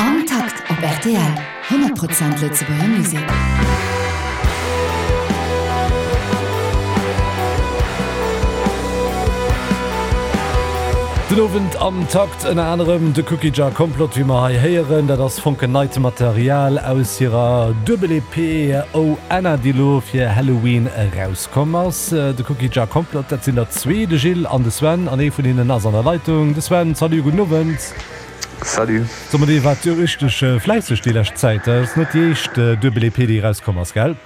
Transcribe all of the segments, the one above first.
Am Takt op rtl, 100 Prozent Lëtzebuerger Musek. Den Owend am Takt ënner anerem de Cookie Jar Complot, wéi mer hei héieren. Dat ass fonkelneit Material aus hirer Duebel-EP Oh Anna, déi elo fir Halloween erauskomm ass. De Cookie Jar Complot, dat sinn der zwee, de Gilles an de Sven, an ee vun hinnen ass an der Leitung. De Sven, salut, gudden Owend. Salut. So mer, dir waart jo richteg fläisseg déi lescht Zäit. Dat ass net déi éischt Duebel-EP, déi erauskomm ass, gell?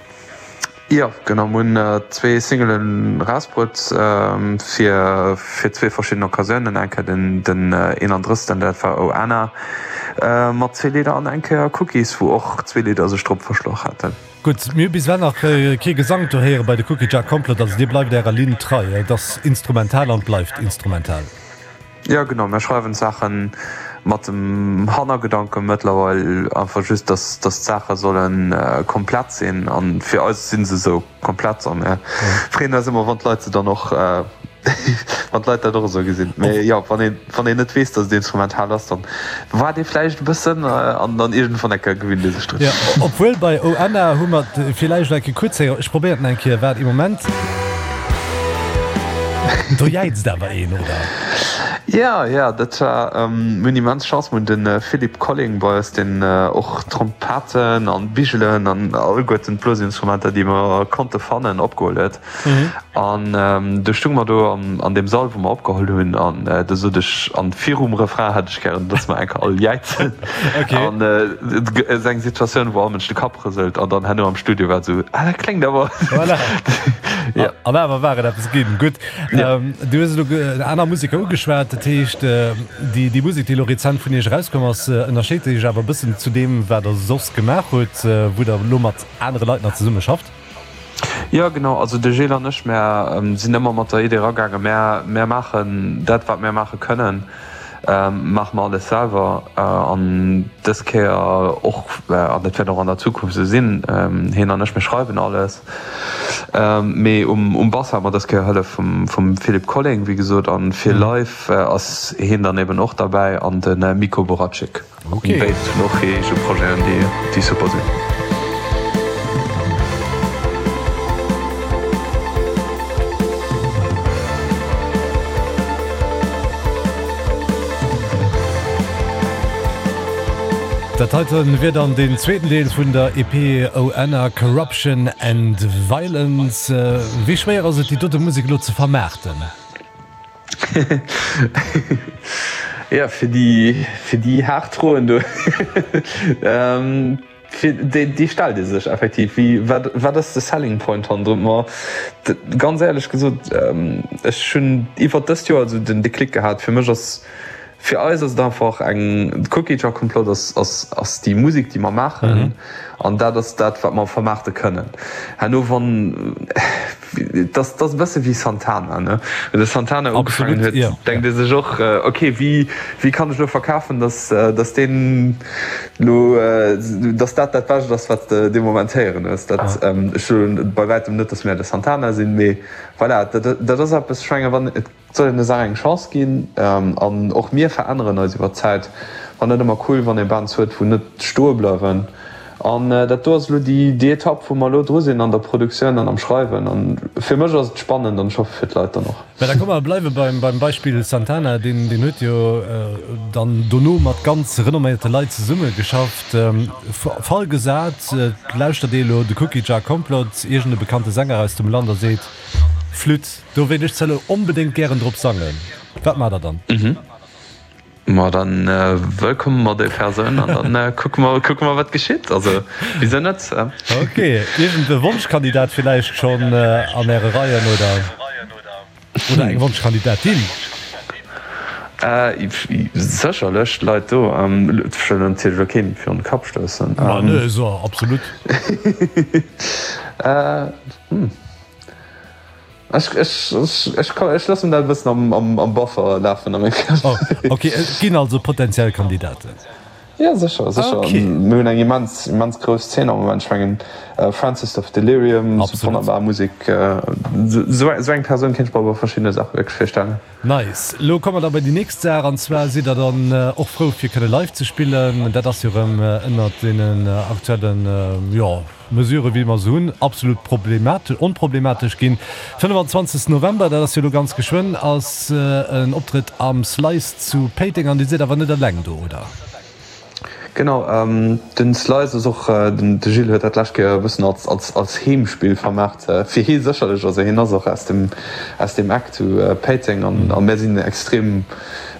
Jo, genau. Mir hunn zwee Singelen erausbruet fir fir zwee verschidden Occasiounen. Eng Kéier den den 31. Dat war Oh Anna mat zwee Lidder an eng Kéier Cookies, wou och zwee Lidder sech drop verschloch haten. Gutt, mir hu bis ewell nach kee Gesank do héiere bei de Cookie Jar Complot, also dir bleift ärer Linn trei, et ass instrumental an et bleift instrumental. Jo genau, mir schreiwen d'Saache mat dem Hannergedanke mëttlerweil einfach just, dass d'Saache solle komplett sinn an fir eis si se esou komplett a mir freeën eis ëmmer wann d'Leit se dann och Wann d'Leit dat och esou gesinn. Mee jo, wann een, wann een net weess, datt et instrumental ass, dann waart ee vläicht e bëssen an dann iergendwann eng Kéier gewinnt ee sech drun. Jo, obwuel bei Oh Anna hu mer et villäicht eng Kéier kuerz héieren. Ech probéieren et eng Kéier. Waart ee Moment. Do jäizt awer een, oder? Jo, jo, dat war, mir hunn immens Chance, mir hunn de Philippe Colling bei eis, deen och Trompetten an Bigelen an alleguerten d'Blosinstrumenter, déi mer konnte fannen, opgeholl huet. An du stung mer do an deem Sall, wou mer opgeholl hunn, an du sot ech, an virum Refrain hätt ech gären, dass mer enker all jäizen. An et ass eng Situatioun, wou all Mënsch de Kapp rëselt, an dann herno am Studio war et esou, ah, dat kléngt awer. Voilà. Ja. An awer war et eppes ginn. Gutt. Du hues elo aner Museker ugeschwat, dat heescht, déi, déi Musek, déi elo rezent vun iech erauskomm ass, ënnerscheet sech awer e bëssen zu deem, wat der soss gemaach hutt, wou der elo mat anere Leit nach zesumme schafft? Jo genau, also de Gilles an ech mär sinn ëmmer mat der Idee eragaangen, mär mär maachen dat wat mär maache kënnen, maache mer alles selwer an dës Kéier och, an dat wäert och an der Zukunft esou sinn, hien an ech mir schreiwen alles, mee um um Bass hate mer dës Kéier Hëllef vum vum Philippe Colling wéi gesot an fir live ass hien dann eben och derbäi an de Miko Boraczyk. Okay. Béid hunn och hir eege Projeten, déi super sinn. Dat heiten wier dann deen zweeten Deel vun der EP Oh Anna, Corruption and Violence. Wéi schwéier ass et déi dote Musek elo ze vermaarten? Ja, fir déi, fir déi haart Froen do, fir déi, déi stellt ee sech effektiv. Wéi, wat, wat ass de Selling Point hannendrun? Ma ganz éierlech gesot, ech hunn iwwert dëst Joer esou den Déclic gehat, fir mech ass, fir eis ass et einfach eng, de Cookie Jar Complot ass, ass, ass déi Musek, déi mer maachen an dat ass dat, wat mer vermaarte kënnen. Herno wann. Et ass e bësse wéi Santana, ne? Wéi de Santana ugefaangen huet, denkt ee sech och, ok, wéi, wéi kann ech elo verkafen, datt, datt deen elo, datt dat dat Bescht ass, wat s de dee Moment héieren hues. Dat, ech soen bei wäitem net, datt mär de Santana sinn, mee voilà, dat, dat ass eppes, ech menge wann, et soll een der Saach eng Chance ginn an och mir veränneren eis iwwer d'Zäit. War net ëmmer cool, wann ee Bands huet, wou net stoe bleiwen. An dat do ass elo déi déi Etapp, wou mer elo dru sinn an der Produktioun an am Schreiwen. An fir mech ass et spannend an ech hoffe fir d'Leit dann och. Mä da komm mer bleiwe beim beim Beispill Santana. Deen deen huet jo dann dono mat ganz renomméierte Leit zesumme geschafft. Fall gesat, et lauschtert ee elo de Cookie Jar Complot, iergend e bekannte Sänger aus dem Land a seet, Flütt, do wéilt ech zwar elo onbedéngt gären drop sangen. Wat maacht der dann? Ma dann wëllkomme mer déi Persoun an dann kucke mer, kucke mer wat geschitt. Also wisou net? Ok, iergend e Wonschkandidat villäicht schonn an äre Reien oder, oder eng Wonschkandidatin? Sécherlech Leit do. Ech wëll natierlech elo keen virun de Kapp stoussen. Ma ne, so absolut. Ech, ech, ech, ech loossen dat e bëssen am, am, am Buffer lafen a mengem Kapp. Oh, ok, et ginn also potenziell Kandidaten. Jo, sécher, sécher. Okay. Mir hunn eng immens, immens grouss Zeen am Moment. Ech mengen, Francis of Delirium, Absolut. wonnerbar Musek. Esou eng Persoun kéint ech mer bei verschiddene Saache wierklech virstellen. Nice. Elo komme mer da bei déi nächst Saach, an zwar sidd der dann och frou fir kënne live ze spillen. Dat ass jo erëm ënnert deenen aktuellen, jo, Mesuren, wéi mer se hunn, absolut problematesch, onproblematesch ginn. 25. November, dat ass jo elo ganz geschwënn, ass en Optrëtt am Slice zu Péiteng an Dir sidd awer net eleng do, oder? Genau, den Slice ass och, den de Gilles huet dat d'lescht Kéier e bëssen als, als, als Heemspill vermaart, fir hie sécherlech, also hien ass och aus dem, aus deem Eck zu Péiteng an a mär sinn extrem,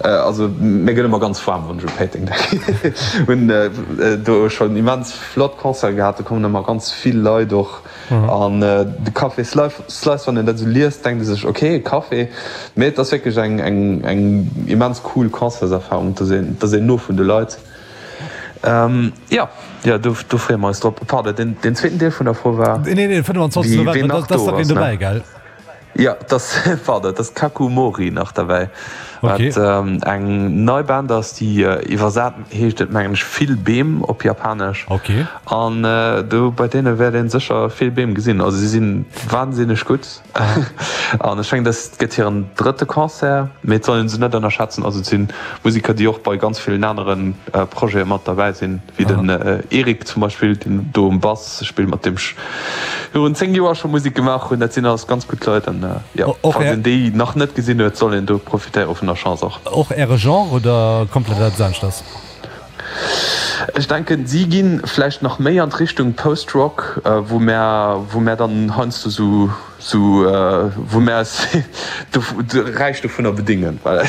also mir gëtt ëmmer ganz waarm, wann ech u Péiteng denken, hunn do schonn immens flott Concerte gehat, do kommen ëmmer ganz vill Leit och an de Café Slice, wann een dat esou liest, denkt ee sech, ok, e Café, mee et ass wierklech eng, eng, eng immens cool Concertserfarung, et ass een, et ass een no vun de Leit. Jo, jo, do, do freeë mer eis drop. Pardon, deen, deen zweeten Deel vun der Fro war, Nee, nee, 25. wie, ween November, nach da ass do nach een ass, ne? dobäi, gell? Jo, et ass, pardon, et ass Kaku Mori nach derbäi, Okay. wat eng nei Band ass, déi iwwersat heescht et mengen ech vill Beem op Japanesch. Okay. An do bei deene wäert ee sécher vill Beem gesinn. Also si si wahnsinneg gutt an ech mengen dëst gëtt hiren drëtte Concert, mee et soll ee se net ënnerschätzen. Also et si Museker, déi och bei ganz villen anere Projete mat derbäi sinn. Wéi den Eric zum Beispill, deen do um Bass spillt, mat deem ech virun 10 Joer scho Musek gemaach hunn. Dat sinn alles ganz gutt Leit an jo, falls een déi nach net gesinn huet, soll een do profitéiere vun der Chance och. Och Äre Genre oder komplett eppes aneschters? Ech denken, si gi vläicht nach méi an d'Richtung Post-Rock, wou mär, wou mär dann heiansdo sou, sou, wou mär eis räich dovunner bedéngen, well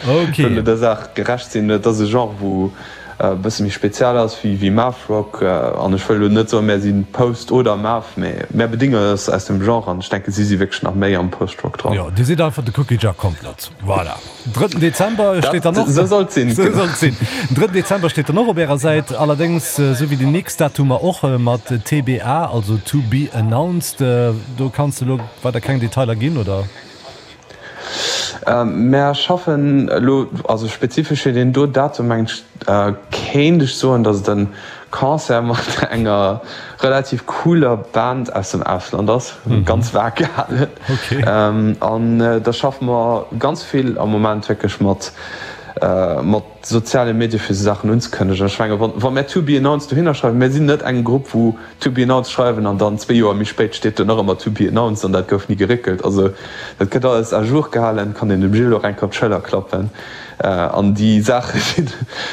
wëlle der Saach gerecht sinn. Et ass e Genre, wou e bësse méi speziell ass wéi Math-Rock. An ech wëll elo net soen, mär si Post oder Math, mee mär bedéngen eis aus dem Genre an ech denke si si wierklech nach méi am Post-Rock dran. Jo, Dir sidd einfach de Cookie Jar Komplott. Voilà. Drëtten Dezember steet dann och. Esou soll et sinn. Esou soll et sinn. Den drëtten Dezember steet dann och op Ärer Säit, allerdéngs esou wéi déi nächst Datumer och mat TBA, also to be announced. Do kanns de elo weider keng Detailer ginn, oder? Mär schaffen elo, also spezifesch fir deen do Datum mengen ech, kéint ech soen, datt et e Concert mat enger relativ cooler Band aus dem Ausland ass, ganz vag gehalen. An da schaffe mer ganz vill am Moment wierklech mat mat soziale Medie fir esou Saachen unzekënnegen. Ech menge wa mär to be announced dohinner schreiwen, mär sinn net eng Grupp wou To be announced schreiwen an dann zwee Joer méi spéit steet do nach ëmmer to be announced an dat gouf ni geréckelt. Also dat gëtt alles à jour gehalen, kann een dem Gilles och eng Kéier op d'Schëller klappen an déi Saache sinn,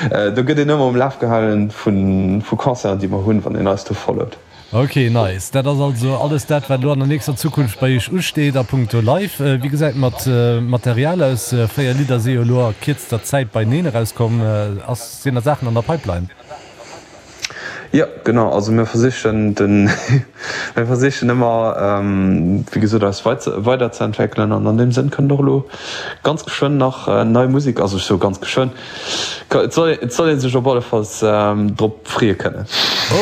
do gëtt een ëmmer um Laf gehalen vu Concerten déi mer hunn, wann een eis do followt. Ok, nice. Dat ass also alles dat wat elo an der nächster Zukunft bei iech usteet a punkto Live. Wéi gesäit mat Material aus? 4 Lidder si jo elo a kierzter Zäit beineen erauskomm. Ass, sinn nach Saachen an der Pipeline? Jo, genau. Also mir versichen den, mir versichen ëmmer, wéi gesot, eis weiderzeentwéckelen an an deem Sënn kënnt och elo ganz geschwënn nach nei Musek, also ech soe ganz geschwënn, et soll, et soll ee sech op allefalls drop freeë kënnen.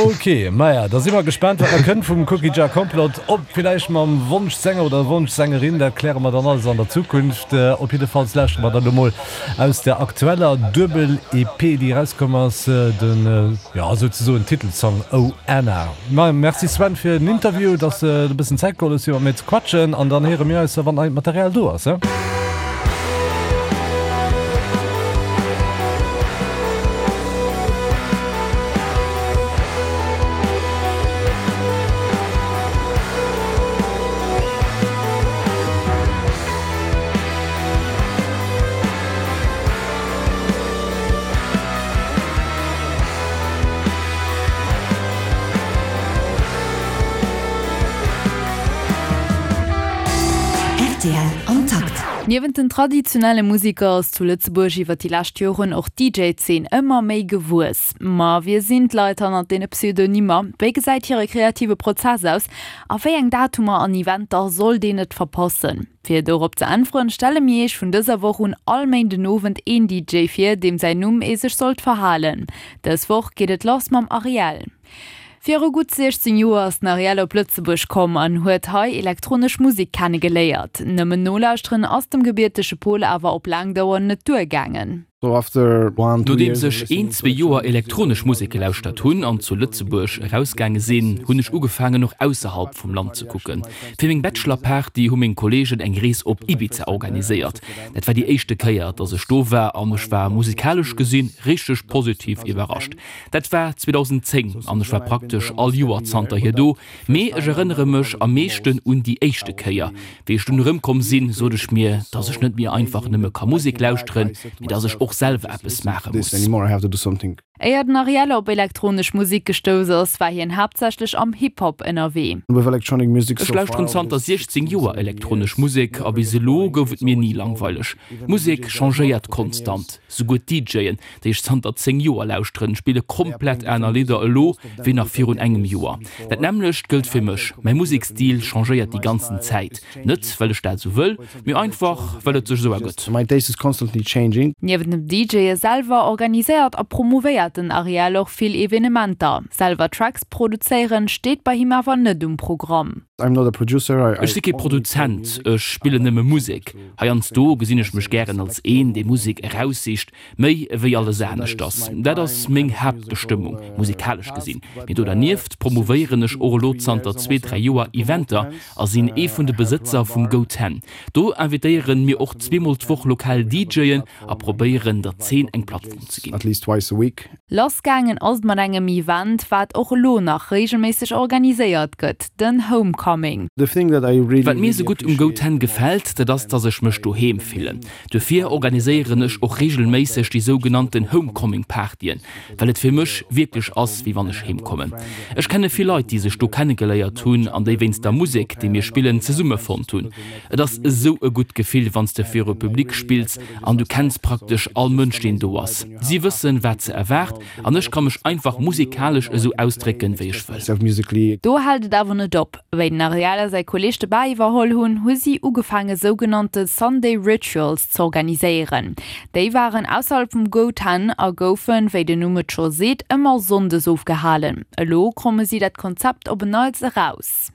Ok, maja, da si mer gespaant, wat nach kënnt vum Cookie Jar Complot, ob villäicht mam Wonschsänger oder Wonschsängerin, dat kläre mer dann alles an der Zukunft. Op jiddefalls lauschtere mer dann elo mol Aus der aktueller Duebel-EP, déi erauskomm ass, den, jo, souzesoen Titelsong Oh Anna. Ma merci Sven fir den Interview, dass de e bëssen Zäit geholl hues fir mat mir ze quatschen an dann héiere mir eis, wann neit Material do ass, he? Rtl am Takt. Niewent den traditionelle Museker ass zu Lëtzebuerg iwwer déi lescht Joren och d'DJ-Zeen ëmmer méi gewuess. Ma wie sinn d'Leit hannert deene Pseudonymer? Wéi gesäit hire kreative Prozess aus? A wéi eng Datumer an Eventer sollt een net verpassen? Fir dorop ze äntweren, stelle mir iech vun dëser Woch un all Méindenowend een DJ vir, deem säin Numm ee sech sollt verhalen. Dës Woch geet et lass mam Ariel. Viru gutt 16 Joer ass den Ariel op Lëtzebuerg komm an huet hei elektronesch Musek kenne geléiert. Nëmmen nolauschteren ass dem gebiertege Pol awer op laang Dauer net duergaangen. Nodeems ech een, zwee Joer elektronesch Musek gelauschtert hunn an zu Lëtzebuerg erausgaange sinn, hunn ech ugefaangen och ausserhalb vum Land ze kucken. Fir meng Bachelor-Party hu meng Kolleegen eng Rees op Ibiza organiséiert. Dat war déi éischte Kéier, dass ech do war an ech war musikalesch gesinn richteg positiv iwwerrascht. Dat war 2010 an ech war praktesch all Joer zanterhier do. Mee ech erënnere mech am meeschten un déi éischte Kéier. Wéi ech dunn erëmkomm sinn, sot ech mir, dass ech net méi einfach nëmme ka Musek lauschteren, mee dass ech och selwer eppes maache muss. Éier den Ariel op elektronesch Musek gestouss ass, war hien haaptsächlech am Hip-Hop ënnerwee. Ech lauschteren zanter 16 Joer elektronesch Musek a bis elo gouf et mir ni langweileg. Musek changéiert konstant, souguer d'DJen, déi ech zanter 10 Joer lauschteren, spille komplett aner Lidder elo wéi nach virun engem Joer. Dat nämmlecht gëllt fir mech, mäi Musekstil changéiert déi ganzen Zäit, net well ech dat esou wëll, mee einfach well et sech esou ergëtt. Niewent dem DJe selwer organiséiert a promouvéiert den Ariel och vill Evenementer. Selwer Tracks produzéieren steet bei him awer net um Programm. Ech si kee Produzent, ech spillen nëmme Musek. Heiansdo gesinn ech mech gären als een, dee Musek eraussicht, Méi ewéi alles aneschters. Dat ass meng Haaptbestëmmung, musikalesch gesinn. Mee do dernieft promouvéieren ech och elo zanter zwee, dräi Joer Eventer a sinn ee vun de Besëtzer vum Go Ten. Do invitéieren mir och zweemol d'Woch lokal DJen a probéieren der Zeen eng Plattform ze ginn. Lass gaangen ass et mat engem Event, wat och elo nach reegelméisseg organiséiert gëtt, den Homecoming. Wat mir esou gutt um Go Ten gefält, dat ass, dass ech mech doheem fillen. Duerfir organiséieren ech och reegelméisseg déi sougenannten Homecoming-Partyen, well et fir mech wierklech ass, wéi wann ech heem kommen. Ech kenne vill Leit, déi sech do kennegeléiert hunn an déi wéinst der Musek, déi mir spillen, zesummefonnt hunn. Et ass esou e gutt Gefill, wann s de viru Public spills an du kenns praktesch all Mënsch, deen do ass. Si wëssen, wat se erwaart an ech ka mech einfach musikalesch esou ausdrécken, wéi ech wëll. Do hält et awer net op. Wéi den Ariel a säi Kolleeg de Bar iwwerholl hunn, hu si ugefaange sougenannte Sunday Rituals z'organiséieren. Déi waren ausserhalb vum Go Ten a goufen, wéi den Numm et scho seet, ëmmer sonndes ofgehalen. Elo kromme si dat Konzept op en Neits eraus.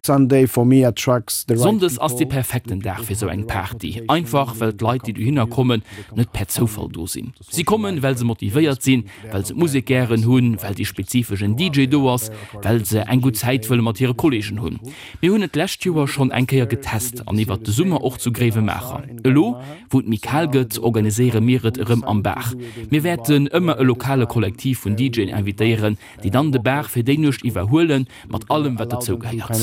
Sonndes ass dee perfekten Dag fir sou eng Party, einfach well d'Leit, déi dohinner kommen, net per Zoufall do sinn. Si kommen, well se motivéiert sinn, well se d'Musek gären hunn, well dee spezifeschen DJ do ass, well se eng gutt Zäit wëlle mat hire Kolleegen hunn. Mir hunn et d'lescht Joer schonn eng Kéier getest an iwwert de Summer och zu Gréiwemaacher. Elo, wou et méi kal gëtt, organiséiere mir et erëm am Bar. Mir wäerten ëmmer e lokale Kollektiv vun DJen invitéieren, déi dann de Bar fir déi Nuecht iwwerhuelen, mat allem wat dozou gehéiert.